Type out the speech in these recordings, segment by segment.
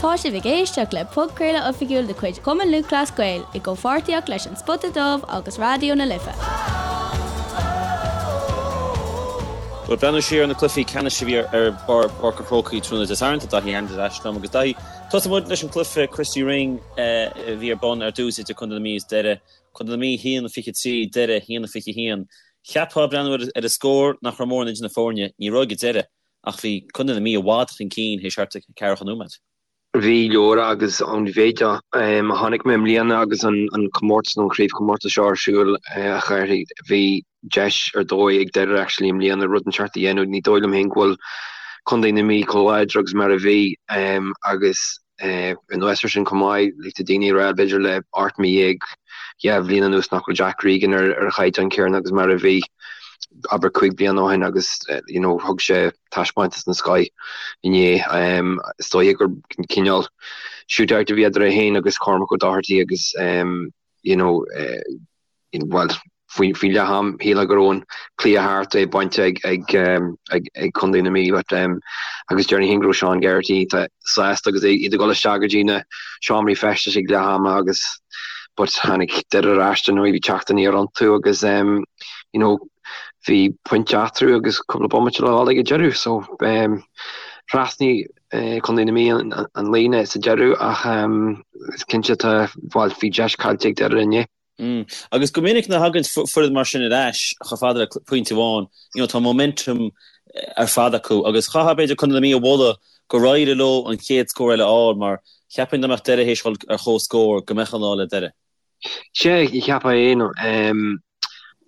Tá sibh ag éisteacht le podchraoladh oifigiúil de chuid Chumann Lúthchleas Gael i gcomhpháirtíocht leis An Spota Dubh agus Raidió na Life. Bhuel, breathnú siar ar na cluichí ceannais a bhí ar Pháirc an Chrócaigh tráthnóna Dé Sathairn, tá Daithí Hanlon ar ais liom agus Daithí, tosóidh muid leis an cluiche Christy Ring a bhí ar bun ar dtús idir Contae na Mí is Doire. Contae na Mí 1-23, Doire 1-21. Cheapfá ag breathnú ar an scór nach raibh mórán idir na foirne, ní raibh ag an deireadh. Ach bhí Contae na Mí i bhfad chun cinn théis thart ar ceathracha nóiméad. Bhí leora agus an mhéid a chonaic mé i mbliana agus an comórtas nó an chraobhchomórtas seo ar siúl a Chárthaigh, bhí deis ar dóigh ag Doire actually i mbliana rud inteacht a dhéanamh. Ní dóigh liom féin go bhfuil Contae na Mí chomh láidir agus mar a bhí agus Anuas air sin chomh maith, like tá daoine ag rá b'fhéidir le 18 mí, 2 bhliain anuas nach bhfuil Jack Regan ar ar a chaighdeán céanna agus mar a bhí abair 5 bliana ó shin agus you know thug sé taispeántas den scoith inné. Is dóiche gur cineál shootout a bhí idir é féin agus Cormac O'Doherty agus you know bhuel, faoi leath am, shílfeá go raibh an cluiche thart, é bainte ag Contae na Mí but agus déarfainn féin go raibh Sean Geraghty sásta agus iad ag dul isteach go dtí na seomraí feistis ag leath ama agus but tháinig Doire ar ais dar ndóigh, bhí teacht aniar iontu agus you know bhí pointe eatarthu agus cúpla bomaite le dhul ag an deireadh so thrasnaigh Contae na Mí an líne sa deireadh ach is cinnte tá, bhuel, bhí deis caillte ag Doire inné. Agus go minic nuair a thagann foireann mar sin ar ais chomh fada le pointe amháin, you know, tá momentum ar fad acu agus chaithfeá b'fhéidir Contae na Mí a mholadh gur éirigh leo an chéad scór eile a fháil mar cheapfainn dá mbeadh Doire théis dhul ar chomhscór go mbeadh an lá le Doire. Sea, cheapfá é.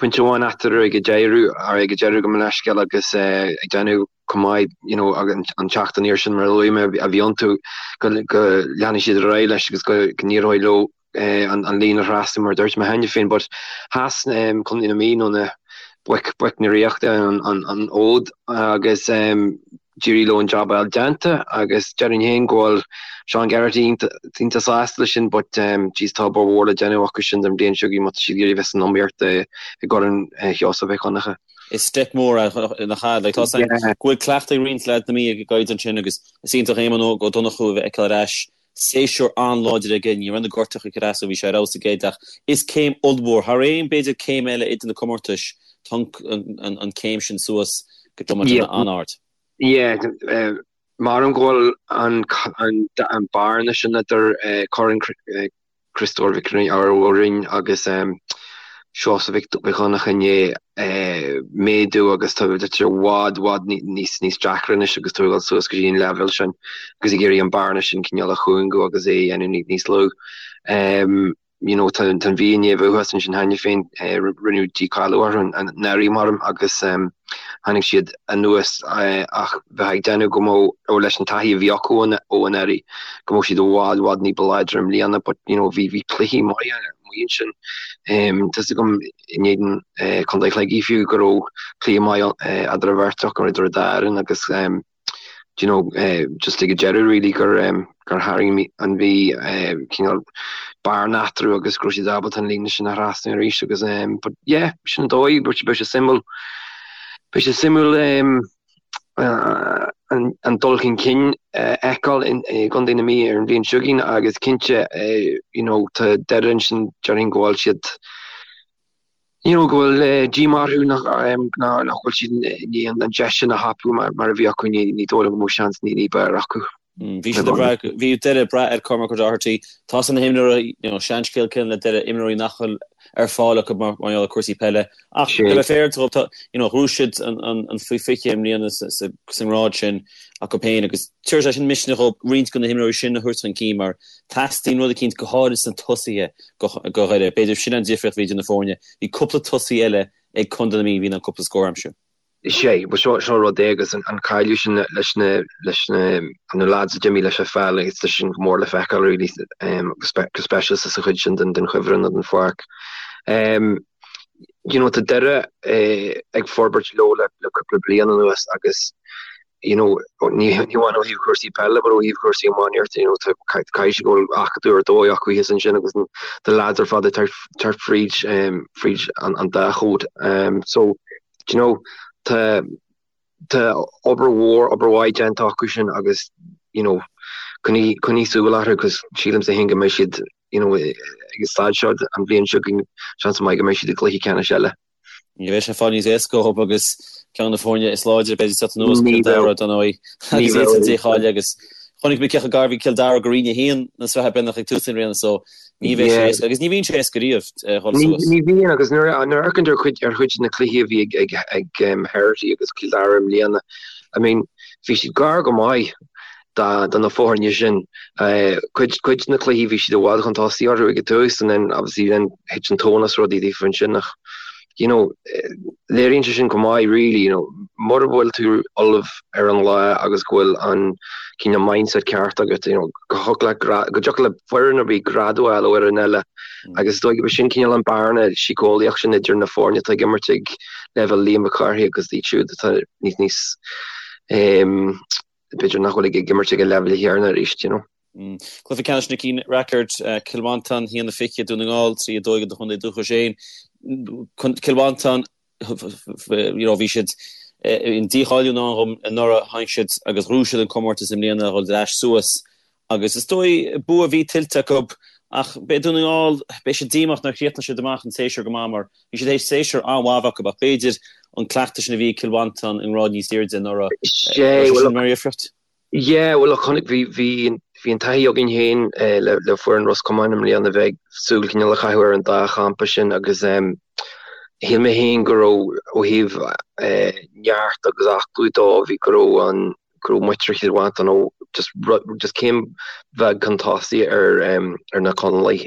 Pointe amháin eatarthu ag an deireadh, ag an deireadh gabh mo leithscéal agus ag déanamh chomh maith you know an teacht aniar sin mar a luaigh mé a bhí iontu go leanfaidh siad ar aghaidh leis agus go n-éireoidh leo an líne a thrasnú mar a dúirt mé cheana féin but sheas Contae na Mí nó na boic boic na Ríochta an fhód agus d'éirigh leo an jab a fháil déanta agus déarfainn féin go bhfuil Sean Geraghty iontach sásta leis sin but jeez tá obair mhór le déanamh acu sin don bhliain seo chugainn má tá siad ag iarraidh bheith san iomaíocht i gCorn Sheosaimh Mhic Dhonncha. Is step mór é nach ea? Like tá a fhios againn go bhfuil cleachtadh ag roinnt leaids na Mí ag an gcaighdeán sin agus is iontach Éamonn Óg Ó Donnchú a bheith feiceáil ar ais. Séasúr an-láidir aige, ní raibh na gortuithe ag cur as dó, bhí sé ar fheabhas aige ach is céim ollmhór, thar aon b'fhéidir céim eile idir na comórtais, tá an céim sin suas go dromaid an-ard. Yeah, measaim go bhfuil an bearna sin idir Corn Chriostóir Mhic Rinn agus Seosamh Mhic Dhonncha i ndiaidh méadú agus tá sé i bhfad, bhfad níos níos deacra anois agus tú ag dul suas go dtí an leibhéal sin agus ag iarraidh an bearna sin cineál a chúngú agus é a dhéanamh níos lú. You know, tá an Mhí i ndiaidh bheith thuas ansin cheana féin, rinneadh dícháiliú orthu anuraidh maram agus tháinig siad anuas ach bheifeá ag déanamh go mbeadh, ó leis an taithí a bhí acu ó anuraidh, go mbeadh siad i bhfad, bhfad ní ba láidre i mbliana but you know bhí bhí cluichí maithe amuigh ansin. Tá 'fhios agam in éadan Contae Shligigh fiú go raibh cluiche maith eadar an bheirt acu, idir an dá fhoireann agus do you know just ag an deireadh really gur gur tharraing an Mhí cineál bearna eatarthu agus go raibh siad ábalta an líne sin a thrasnú arís agus but yeah sin an dóigh beidh sé suimiúil beidh sé suimiúil an dul chun cinn a fheiceáil i gContae na Mí ar an bhliain seo chugainn agus cinnte you know tá Doire ansin déarfainn go bhfuil siad you know go bhfuil díomá orthu nach nach bhfuil siad i ndiaidh an deis sin a thapú mar a bhí acu ní ní dóigh liom go mbeadh seans ní b'fhearr acu. Bhí siad ag brath, bhí Doire ag brath ar Cormac O'Doherty. Tá na himreoirí, you know, seanscéal céanna le Doire, imreoirí nach bhfuil ar fáil acu mar gheall ar cúrsaí peile. Ach le bheith fair dóibh, tá, you know, ghnóthaigh siad an, an faoi 20 i mbliana sa, sa, sa ngrád sin acu féin agus tabharfaidh sé sin misneach dóibh roinnt de na himreoirí sin a thabhairt chun cinn mar teastaíonn rud eicínt go háirid sna tosaithe do, do Dhoire. B'fhéidir sin an difríocht a bhí idir na foirne. Bhí cúpla tosaí eile ag Contae na Mí a bhí in ann cúpla scór a aimsiú. Sea, bhuel seo, seo rud é agus an cailleadh sin leis na, leis na, na lads a d'imigh leis an pheil agus tá sin go mór le feiceáil really go speisialta sa chuid sin den, den chuibhreann nó den pháirc. You know, tá Doire ag forbairt leo le, le cúpla bliain anuas agus you know, ní, ní amháin ó thaobh cúrsaí peile but ó thaobh cúrsaí iománaíochta, you know, tá, caithfidh sé go bhfuil acadamh ar dóigh acu thíos ansin agus na lads ar fad ag teacht fríd, fríd an, an dá chód. So, Do you know, tá, tá obair mhór, obair mhaith déanta acu sin agus, you know, coinnigh, coinnigh súil orthu cos sílimse féin go mbeidh siad, you know, ag an staid seo an bhliain seo chugainn, seans maith go mbeidh siad i gcluiche ceannais eile. Ní bheidh sé fad níos éasca dhóibh agus ceann de na foirne is láidre b'fhéidir ag teacht anuas, Cill Dara, dar ndóigh, agus iad san dícháiliú agus chonaic mé cé chomh gar a bhí Cill Dara go Roinn 1 na Sraithe Breitheamhnach ag tús na bliana so ní bheidh sé éasca agus ní bhíonn sé éasca riamh dhul suas. Ní bhíonn agus nuair a amharcann tú ar chuid ar chuid de na cluichí a bhí ag ag Herity agus Cill Dara i mbliana, I mean bhí siad gar go maith do na foirne sin. Cuid cuid de na cluichí bhí siad i bhfad chun tosaigh orthu ag an tús and then obviously then thit an tóin as rudaí daofa ansin ach you know léiríonn sé sin go maith really you know mura bhfuil tú ullamh ar an lá agus go bhfuil an cineál mindset ceart agat you know go thiocfadh le go dtiocfadh le foireann ar bith greadadh a fháil ó fhoireann eile agus is dóigh gurb sin cineál an bearna síceolaíoch sin idir na foirne atá ag imirt ag leibhéal Liam Mhic Cárthaigh agus iad siúd atá níos níos b'fhéidir nach bhfuil ag imirt ag an leibhéal chéanna arís, you know. Cluiche ceannais Nicky Rackard, Cill Mhantáin, 1-20, Dún na nGall, 3-2 do chontae dúchais féin. Cill Mhantáin, you know, bhí siad in dícháiliú in ann dhom anuraidh, tháinig siad agus ghnóthaigh siad an comórtas i mbliana a dhul ar ais suas agus is dóigh bua a bhí tuillte acu ach beidh Dún na nGall, beidh siad díomách nár chríochnaigh siad amach an séasúr go maith mar Bhí siad théis séasúr an-mhaith a bheith acu ach b'fhéidir an cleachtadh sin a bhí ag Cill Mhantáin i ngrád níos airde anuraidh, raibh sé sin mar dhifríocht? Yeah, bhuel chonaic, bhí, bhí, bhí an taithí againn féin le, le foireann Ros Comáin i mbliana bheith ag súil cineál a chaitheamh ar an dá champa sin agus shíl mé féin go raibh ó thaobh neart agus aclú dó, bhí go raibh an, go raibh muintir Chill Mhantáin ó just, just céim bheag chun tosaigh ar, ar na Conallaigh.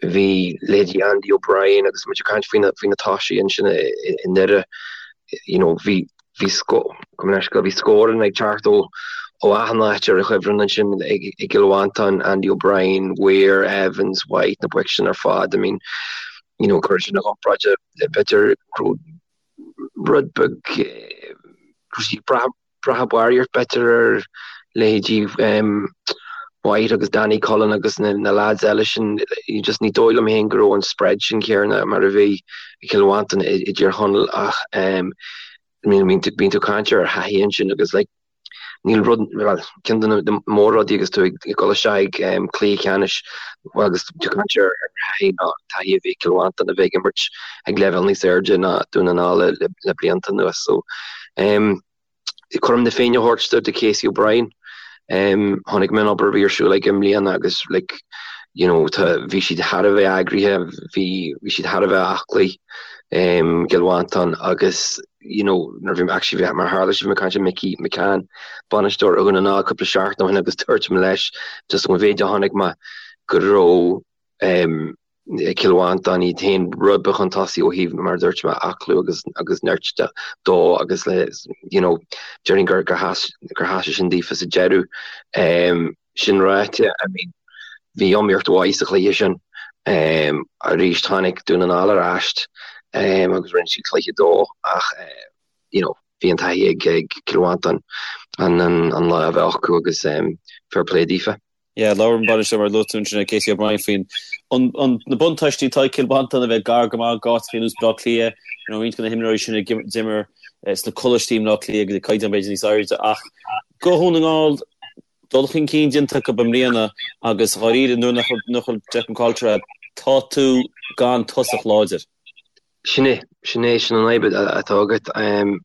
Bhí leithéidí Andy O'Brien agus muid ag caint faoi na faoi na tosaithe ansin i nDoire, you know, bhí bhí bhí scóranna ag teacht ó ó achan áit ar an chuibhreann ansin ag i gCill Mhantáin, Andy O'Brien, Weir, Evans, White, na boic sin ar fad. I mean, you know, cuir sin i gcomparáid le b'fhéidir go raibh rud beag go raibh siad ag brath brath barraíocht b'fhéidir ar leithéidí White agus Danny Cullen agus na lads eile sin, just ní dóigh liom féin go raibh an spread sin céanna mar a bhí i Cill Mhantáin i dTír Chonaill ach I mean bíonn tú ag caint ar thaithí ansin agus like níl rud, bhuel ceann de na mór-rudaí agus tú ag dul isteach ag cluiche ceannais agus tú ag caint ar thaithí ná taithí a bhí ag Cill Mhantáin a bheith ag imirt ag leibhéal níos airde ná Dún na nGall le blianta anuas so Cothrom na Féinne a thabhairt do Casey O'Brien. Chonaic mé an obair a bhí ar siúl aige i mbliana agus like you know tá bhí siad thar a bheith eagraithe, bhí bhí siad thar a bheith aclaí i gCill Mhantáin agus you know nuair a bhí actually bhí mar tharla sé bhí mé ag caint le Mickey McCann, bainisteoir Dhún na nGall cúpla seachtain ó shin agus dúirt mé leis just an mhéid a chonaic mé go raibh Cill Mhantáin iad féin rud beag chun tosaigh ó thaobh, mar a dúirt mé, aclú agus agus nirt de dó agus le you know déarfainn gur gur sheas gur sheas sé sin daofa sa deireadh. Sin ráite, I mean bhí iomaíocht mhaith sa chluiche sin. Arís tháinig Dún na nGall ar ais agus rinne siad cluiche dó ach you know bhí an taithí ag ag Cill Mhantáin an an lá a bheith acu agus fair play daofa. Yeah, labhair an bainisteoir mar a luaigh tú ansin, Casey O'Brien faoin an na buntáistí atá ag Cill Mhantáin a bheith gar go maith d'áiteacha ar nós Baile Átha Cliath, you know, roinnt de na himreoirí sin a d'imir sna coláistí i mBaile Átha Cliath agus ag caighdeán b'fhéidir níos airde ach do Dhún na nGall dul chun cinn déanta acu i mbliana agus dháiríre nuair nach bhfuil Declan Coulter agat tá tú gan tosach láidir. Sin é, sin é, sin an fhadhb atá agat.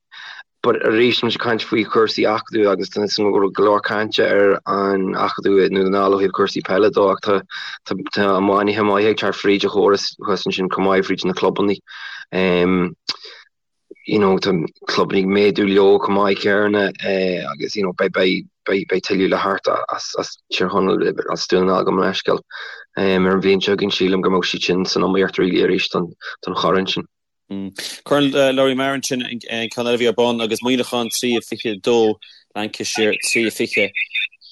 But arís, tá muid ag caint faoi chúrsaí acadúil agus tá go leor cainte ar an acadú i nDún na nGall ó thaobh cúrsaí peile dó ach tá tá tá iománaithe maithe ag teacht fríd an chóras thuas ansin chomh maith fríd na clubanna. You know, tá clubanna ag méadú leo chomh maith céanna agus you know beidh beidh beidh beidh tuilleadh le theacht as as Tír Chonaill as Dún na nGall gabh mo leithscéal ar an bhliain seo chugainn sílim go mbeidh siad sin san iomaíocht really arís don don chorn sin. Corn Lory Meagher ansin an ceann eile a bhí ar bun agus Muineachán 3-22 Lancashire 3-20.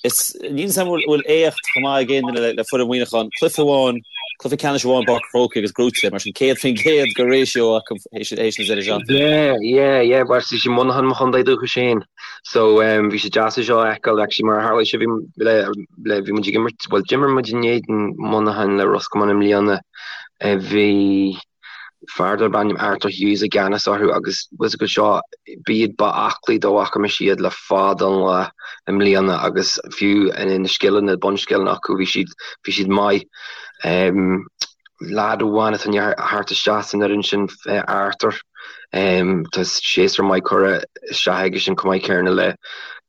Is níl a fhios agam an bhfuil éacht chomh maith ag aon duine le foireann Mhuineacháin. Cluiche amháin, cluiche ceannais amháin i bPáirc an Chrócaigh agus gnóite, mar sin 100% de ratio acu théis na deireadh seachtaine. Yeah, yeah, yeah, bhuel is í Muineachán mo chontae dúchais féin so bhí sé deas é seo a fheiceáil actually mar a tharla sé bhí le le bhí muid ag imirt, bhuel d'imir muid in éadan Muineachán le Ros Comáin i mbliana bhí. Fear darb ainm Arthur Hughes i gceannas orthu agus bhfuil fhios agat seo, b'iad ba aclaí dá bhfaca mise iad le fada an lá i mbliana agus fiú na scileanna, bunscileanna acu, bhí siad, bhí siad maith. Leaid amháin atá i ndiaidh theacht isteach san fhoireann sin, Arthur, tá séasúr maith curtha isteach aige sin chomh maith céanna le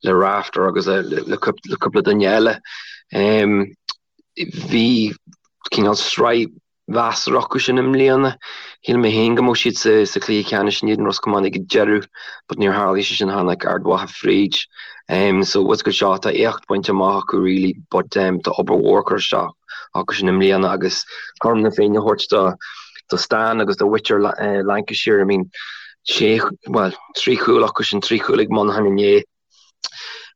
le Rafter agus le le cúpla duine eile. Bhí cineál sraith mheasartha acu sin i mbliana. Shíl mé féin go mbeadh siad sa chluiche ceannais in éadan Ros Comáin ag an deireadh but níor tharlaigh sé sin, tháinig Ard Mhacha fríd. So bhfuil fhios agat seo, tá éacht bainte amach acu really but tá obair mhór curtha isteach acu sin i mbliana agus cothrom na Féinne a thabhairt do do Stan agus do mhuintir Lancashire, I mean sé, bhuel, 3 chúl acu sin, 3 chúl ag Monaghan inné.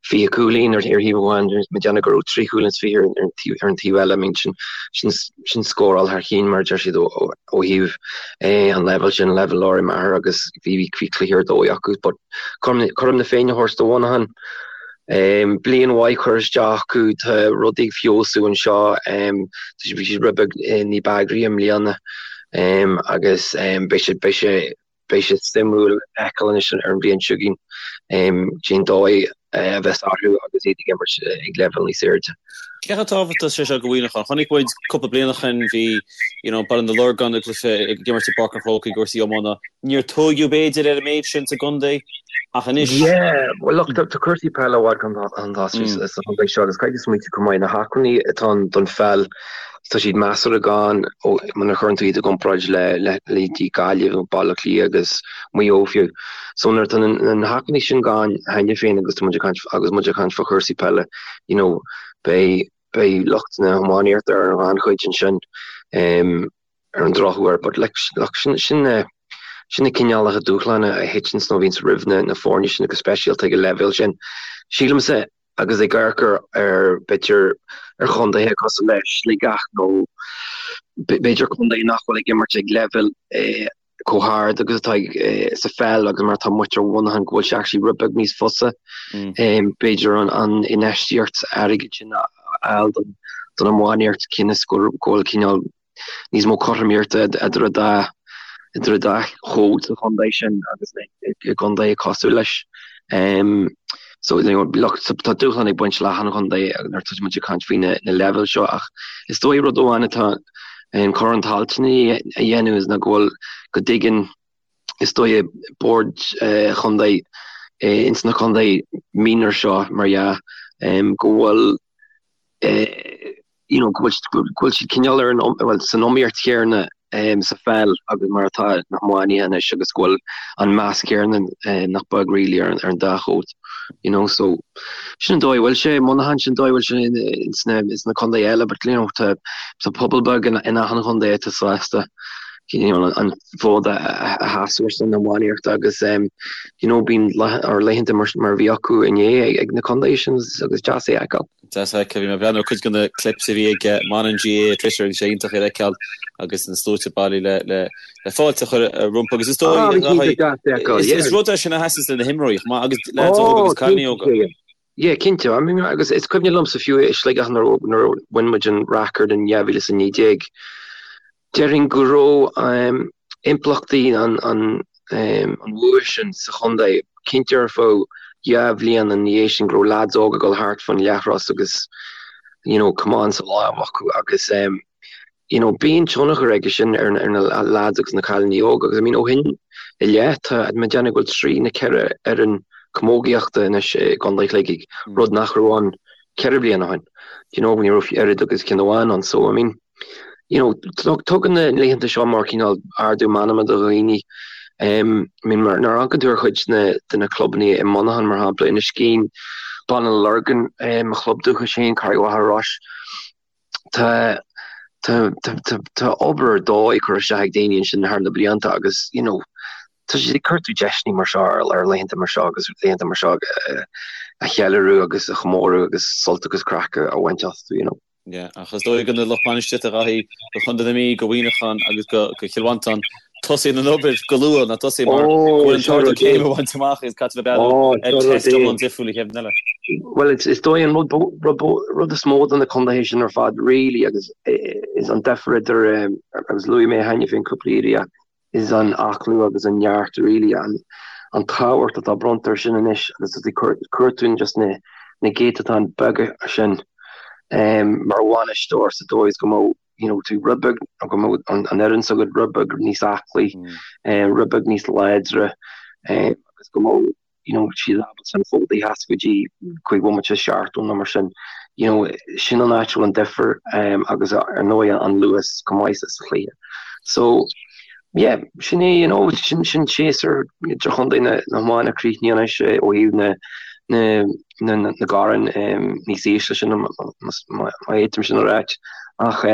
20 cúilín ar thaobh amháin, mé ag déanamh go raibh 3 chúilín is 20 ar an taobh eile. I mean sin sin scóráil thar chinn mar a deir siad ó thaobh an leibhéal sin, leibhéal Lory Meagher agus bhí bhí cluiche ar dóigh acu. But cothrom na Féinne a thabhairt do Mhonaghan. Bliain mhaith curtha isteach acu, tá rudaí ag feabhsú anseo, bhí siad rud beag ní b'eagraí i mbliana agus beidh sé beidh sé Beidh sé suimiúil a fheiceáil anois ar an bhliain seo chugainn cén dóigh a bheas orthu agus iad ag imirt ag leibhéal níos airde. Cé chomh tábhachtach is é seo do Mhuineachán? Chonaic muid cúpla bliain ó shin bhí you know Baile na Lorgan ag cluiche ag imirt i bPáirc an Chrócaigh i gcúrsaí iomána. Níor tóigeadh b'fhéidir ar an méid sin sa gcontae ach anois. Yeah, well look tá cúrsaí peile i bhfad chun tosaigh sa chontae seo agus caithfidh tú smaointiú chomh maith na hacmhainní atá ann don pheil Tá siad measartha gann nuair a chuireann tú iad i gcomparáid le leithéidí Gaillimh nó Baile Átha Cliath agus Maigh Eo fiú. So nuair atá na hacmhainní sin gann cheana féin agus tá muid ag caint agus muid ag caint fá chúrsaí peile, you know, beidh beidh lucht na hiománaíochta ar an ghannchuid ansin ar an drochuair. But like look sin sin na sin na cineálacha dúshláin a thiteanns nó a bhíonns roimh na na foirne sin go speisialta ag an leibhéal sin. Sílimse agus ag amharc ar, b'fhéidir, ar chontaetha cosúil le Sligeach nó b'fhéidir contae nach bhfuil ag imirt ag leibhéal chomh hard agus atá sa pheil agus mar atá muintir Mhuineacháin go bhfuil sé actually rud beag níos fusa b'fhéidir an infheistíocht airgid sin a fháil don iománaíocht cionn is go bhfuil cineál níos mó cothromaíochta idir an dá idir an dá chód sa chontae sin agus i gcontaetha cosúil leis. So you know look tá dúshlán ag baint le achan chontae nuair atá muid ag caint faoi na leibhéil seo ach is dóigh rud amháin atá Corn Tailteann a dhéanamh is ná go bhfuil go dtuigeann is dóigh boird chontae ins na contaetha minor seo mar dhea go bhfuil you know, go bhfuil siad cineál ar an, bhuel, san iomaíocht chéanna sa pheil agus mar atá na hiománaithe anois agus go bhfuil an meas céanna nach beag really ar an dá chód, you know, so sin an dóigh a bhfuil sé i Muineachán, sin an dóigh a bhfuil sé ins na, ins na contaetha eile but you know, tá, tá pobal beag in, in achan chontae atá sásta you know, an fód a, a sheasamh ar son na hiománaíochta agus um, you know, bíonn laethanta mar, mar a bhí acu inné ag, ag na contaetha sin agus deas é a fheiceáil. Deas a fheiceáil. Bhí mé ag breathnú ar cuid de na clips a bhí ag Monaghan GAA ar Twitter agus sé iontach iad a fheiceáil agus na sluaite bailithe le le fáilte a chur rompu agus is dóigh is rud é sin a sheasann le na himreoirí chomh maith agus leaids óga agus cailíní óga. Yeah, cinnte. I mean, agus is cuimhin liomsa fiú i Sligeach nuair a bhain muid an Rackard in 2019, Déarfainn go raibh impleachtaí an bhua sin sa chontae cinnte ar feadh dhá bhliain ina dhiaidh sin, go raibh leaids óga ag dul thart fán leathchros agus you know camán sa lámh acu agus you know bíonn tionchar aige sin ar na leaids agus na cailíní óga agus I mean ó shin i leith tá mé ag déanamh go bhfuil trí nó ceithre fhoireann camógaíochta anois i gContae Shligigh, rud nach raibh ann ceithre bliana ó shin. You know ní raibh oiread agus ceann amháin ann so I mean you know, tugann na laethanta seo mar cineál ardú meanma do dhaoine. I mean, nuair a amharcann tú ar chuid de na clubanna i Monaghan, mar shampla, Inniskeen, Baile na Lorgan, mo chlub dúchais féin, Carraig Mhachaire Rois, tá tá tá tá obair ar dóigh curtha isteach ag daoine ansin thar na blianta agus, you know, tá siad ag cuartú deiseanna mar seo ar laethanta mar seo agus laethanta mar seo a cheiliúradh agus a chomóradh agus sult agus craic a bhaint astu, you know. Yeah, ach is dóigh do na lucht bainistíochta a Dhaithí, do Chontae na Mí, do Mhuineachán agus do Chill Mhantáin, tosaíonn an obair go luath, ná tosaíonn mar go bhfuil an t-ardú céime a bhaint amach agus caithfidh bheith ag breathnú ar test iomlán difriúil an chéad bhliain eile. Bhuel, is dóigh an rud is mó do na contaetha sin ar fad really agus is an difear idir, agus luaigh mé cheana féin cúpla iarraidh. Is an aclú agus an neart really an tábhacht atá bronnta ar sin anois agus tá cuir tú just na na céatadáin beaga sin mar bhainisteoir sa dóigh is go mbeadh you know tú rud beag go mbeadh an fhoireann s'agat rud beag níos aclaí, rud beag níos láidre agus go mbeadh you know, siad ábalta an fód a sheasamh go dtí 5 bhomaite 70 nó mar sin. You know, sin an áit a bhfuil an difear agus ar ndóigh an luas chomh maith sa chluiche. So, yeah, sin é, you know, sin sin séasúr idirchontae na na hiomána críochnaithe anois ó thaobh na na na na gcorn níos ísle sin má fhéadfaim sin a ráit. Ach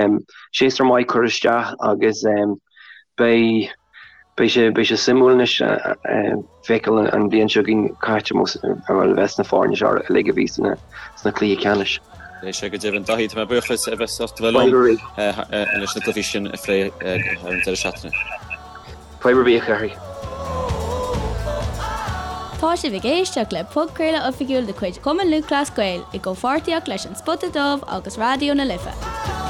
séasúr maith curtha isteach agus beidh Beidh sé, beidh sé suimiúil anois feiceáil an bhliain seo chugainn cá háit a bheas na foirne seo uilig a bhí sna cluichí ceannais. Beidh sé go deimhin. Daithí, tá mé buíoch as a bheith sásta bheith liom leis na cluichí sin a phlé ar an deireadh seachtaine. Fadhb ar bith, a Chárthaigh. Tá sibh ag éisteacht le podchraoladh oifigiúil de chuid Chumann Lúthchleas Gael i gcomhpháirtíocht leis An Spota Dubh agus Raidió na Life.